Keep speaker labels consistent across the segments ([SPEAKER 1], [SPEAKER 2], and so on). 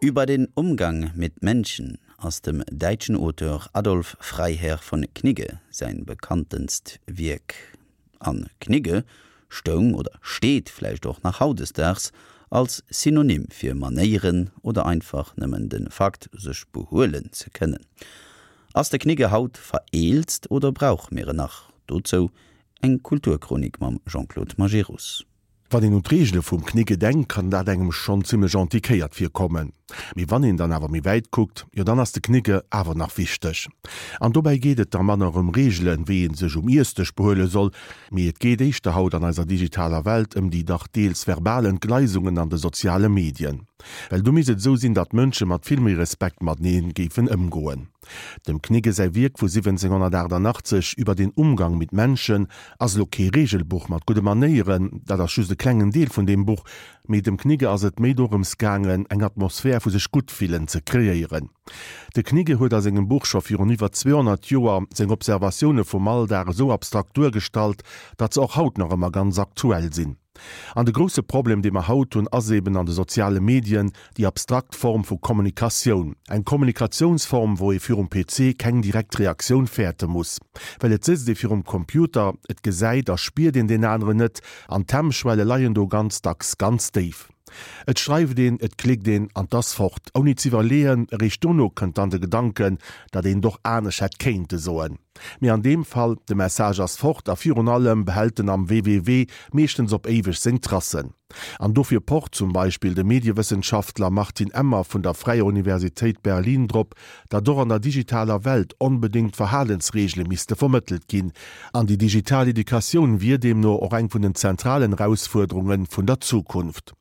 [SPEAKER 1] Über den Umgang mit Menschen ass dem däitschen Auteur Adolf Freiherr von Knigge säin bekanntenst Wierk. An Knigge stoung oder steet vläicht och nach hautdesdaags als Synonym fir Manéieren oder einfach nëmmen de Fakt sech behuelen ze kënnen. Ass de Knigge haut vereelzt oder brauche mir en nach? Dozou eng Kulturchronik mam Jean-Claude Majerus.
[SPEAKER 2] Wann een un d'Reegele vum Knigge denkt, kann dat engem schonn zimmlech antiquéiert virkommen. Mee wann een dann awer méi wäit kuckt, jo dann ass de Knigge awer nach wichteg. An dobäi geet et da manner ëm Reegelen, wéi ee sech um Iessdësch behuele soll, mee et geet éischter haut an eiser digitaler Welt ëm déi dach deels verbal Entgleisungen an de soziale Medien. Well do misst et esou sinn, datt d'Mënsche mat vill méi Respekt matenee géifen ëmgoen. Dem Knigge säi Wierk vu 1788 Über den Umgang mit Menschen ass elo kee Regelbuch mat gudde Manéieren, dat ass just e klengen Deel vun deem Buch, mee dem Knigge ass et méi dorëms gaangen, eng Atmosphär vu sech gutt fillen ze kreéieren. De Knigge huet a sengem Buch scho virun iwwer 200 Joer seng Observatioune vum Alldag esou abstrakt duergestallt, datt se och haut nach ëmmer ganz aktuell sinn. An de grousse Problem, dee mer haut hunn, ass eben an de soziale Medien déi abstrakt Form vu Kommunikatioun. Eng Kommunikatiounsform, wou ee virum PC keng direkt Reaktioun fäerte muss. Well et sëtzt ee virum Computer, et gesäit a spiert een deen aneren net an d'Hemmschwelle leien do ganz dacks ganz déif. Et schreift een, et klickt een an 't ass fort, ouni z'iwwerleeën. Eréischt dono kënnt dann de Gedanken, datt een et och anescht hätt kéinte soen. Mee an deem Fall, de Message ass fort a virun allem behält en am www meeschtens op éiweg seng Tracen. An dofir pocht zum Beispill de Mediewëssenschaftler Martin Emmer vun der Fräier Universitéit Berlin drop, datt och an der digitaler Welt onbedéngt Verhalensreegele misste vermëttelt ginn. An déi digital Educatioun wier deemno och eng vun den zentralen Erausfuerderunge vun der Zukunft.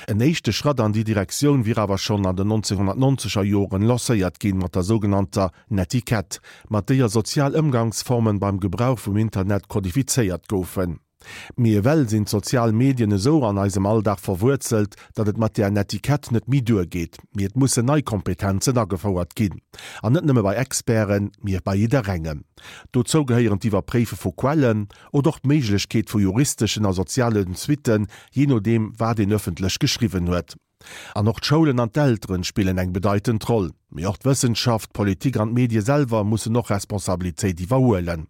[SPEAKER 2] En éischte Schratt an déi Direktioun wier awer schonn an den 1990er Joren lancéiert ginn, mat der sougenannter Netiquette, mat déier sozial Ëmgangsformen beim Gebrauch vum Internet kodifizéiert goufen. Mee ewell sinn d'sozial Medien esou an eisem Alldag verwuerzelt, datt et mat där Netiquette net méi duergeet, mee et mussen nei Kompetenzen agefouert ginn. An net nëmme bei Experten, mee bei jidderengem. Dozou gehéieren d'Iwwerpréife vu Quellen oder och d'Méiglechkeet vu juristeschen a sozialen Suitten, jee nodeem wat een ëffentlech geschriwwen huet. An och d'Schoulen an d'Elteren spillen eng bedeitend Roll. Mee och d'Wëssenschaft, d'Politik an d'Medie selwer mussen och Responsabilitéit iwwerhuelen.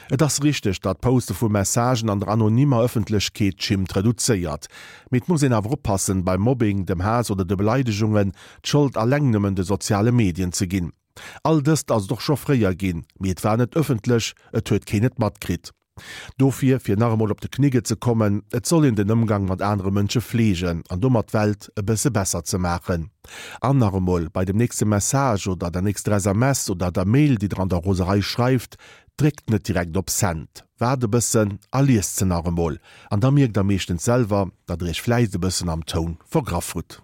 [SPEAKER 2] Et ass richteg, datt d'Poste vu Messagen an der anonymer Ëffentlechkeet d'Schimmt reduzéiert. Mee et muss een awer oppassen, beim Mobbing, dem Haass oder de Beleidegungen d'Schold alleng nëmmen de soziale Medien ze ginn. All dëst ass et och scho fréier ginn, mee et war net ëffentlech, et huet keen et matkritt. Dofir, fir nach emol op de Knigge ze kommen, et soll een den Ëmgang mat anere Mënsche fleegen an domat d'Welt e bësse besser ze maachen. An nach emol, bei dem nächste Message oder der nächster SMS oder der Mail, déi der an der Roserei schreift, dréckt net direkt op Send. Waart e bëssen a liest se nach emol. An da mierkt der meeschtens selwer, datt der iech vläicht e bëssen am Toun vergraff hutt.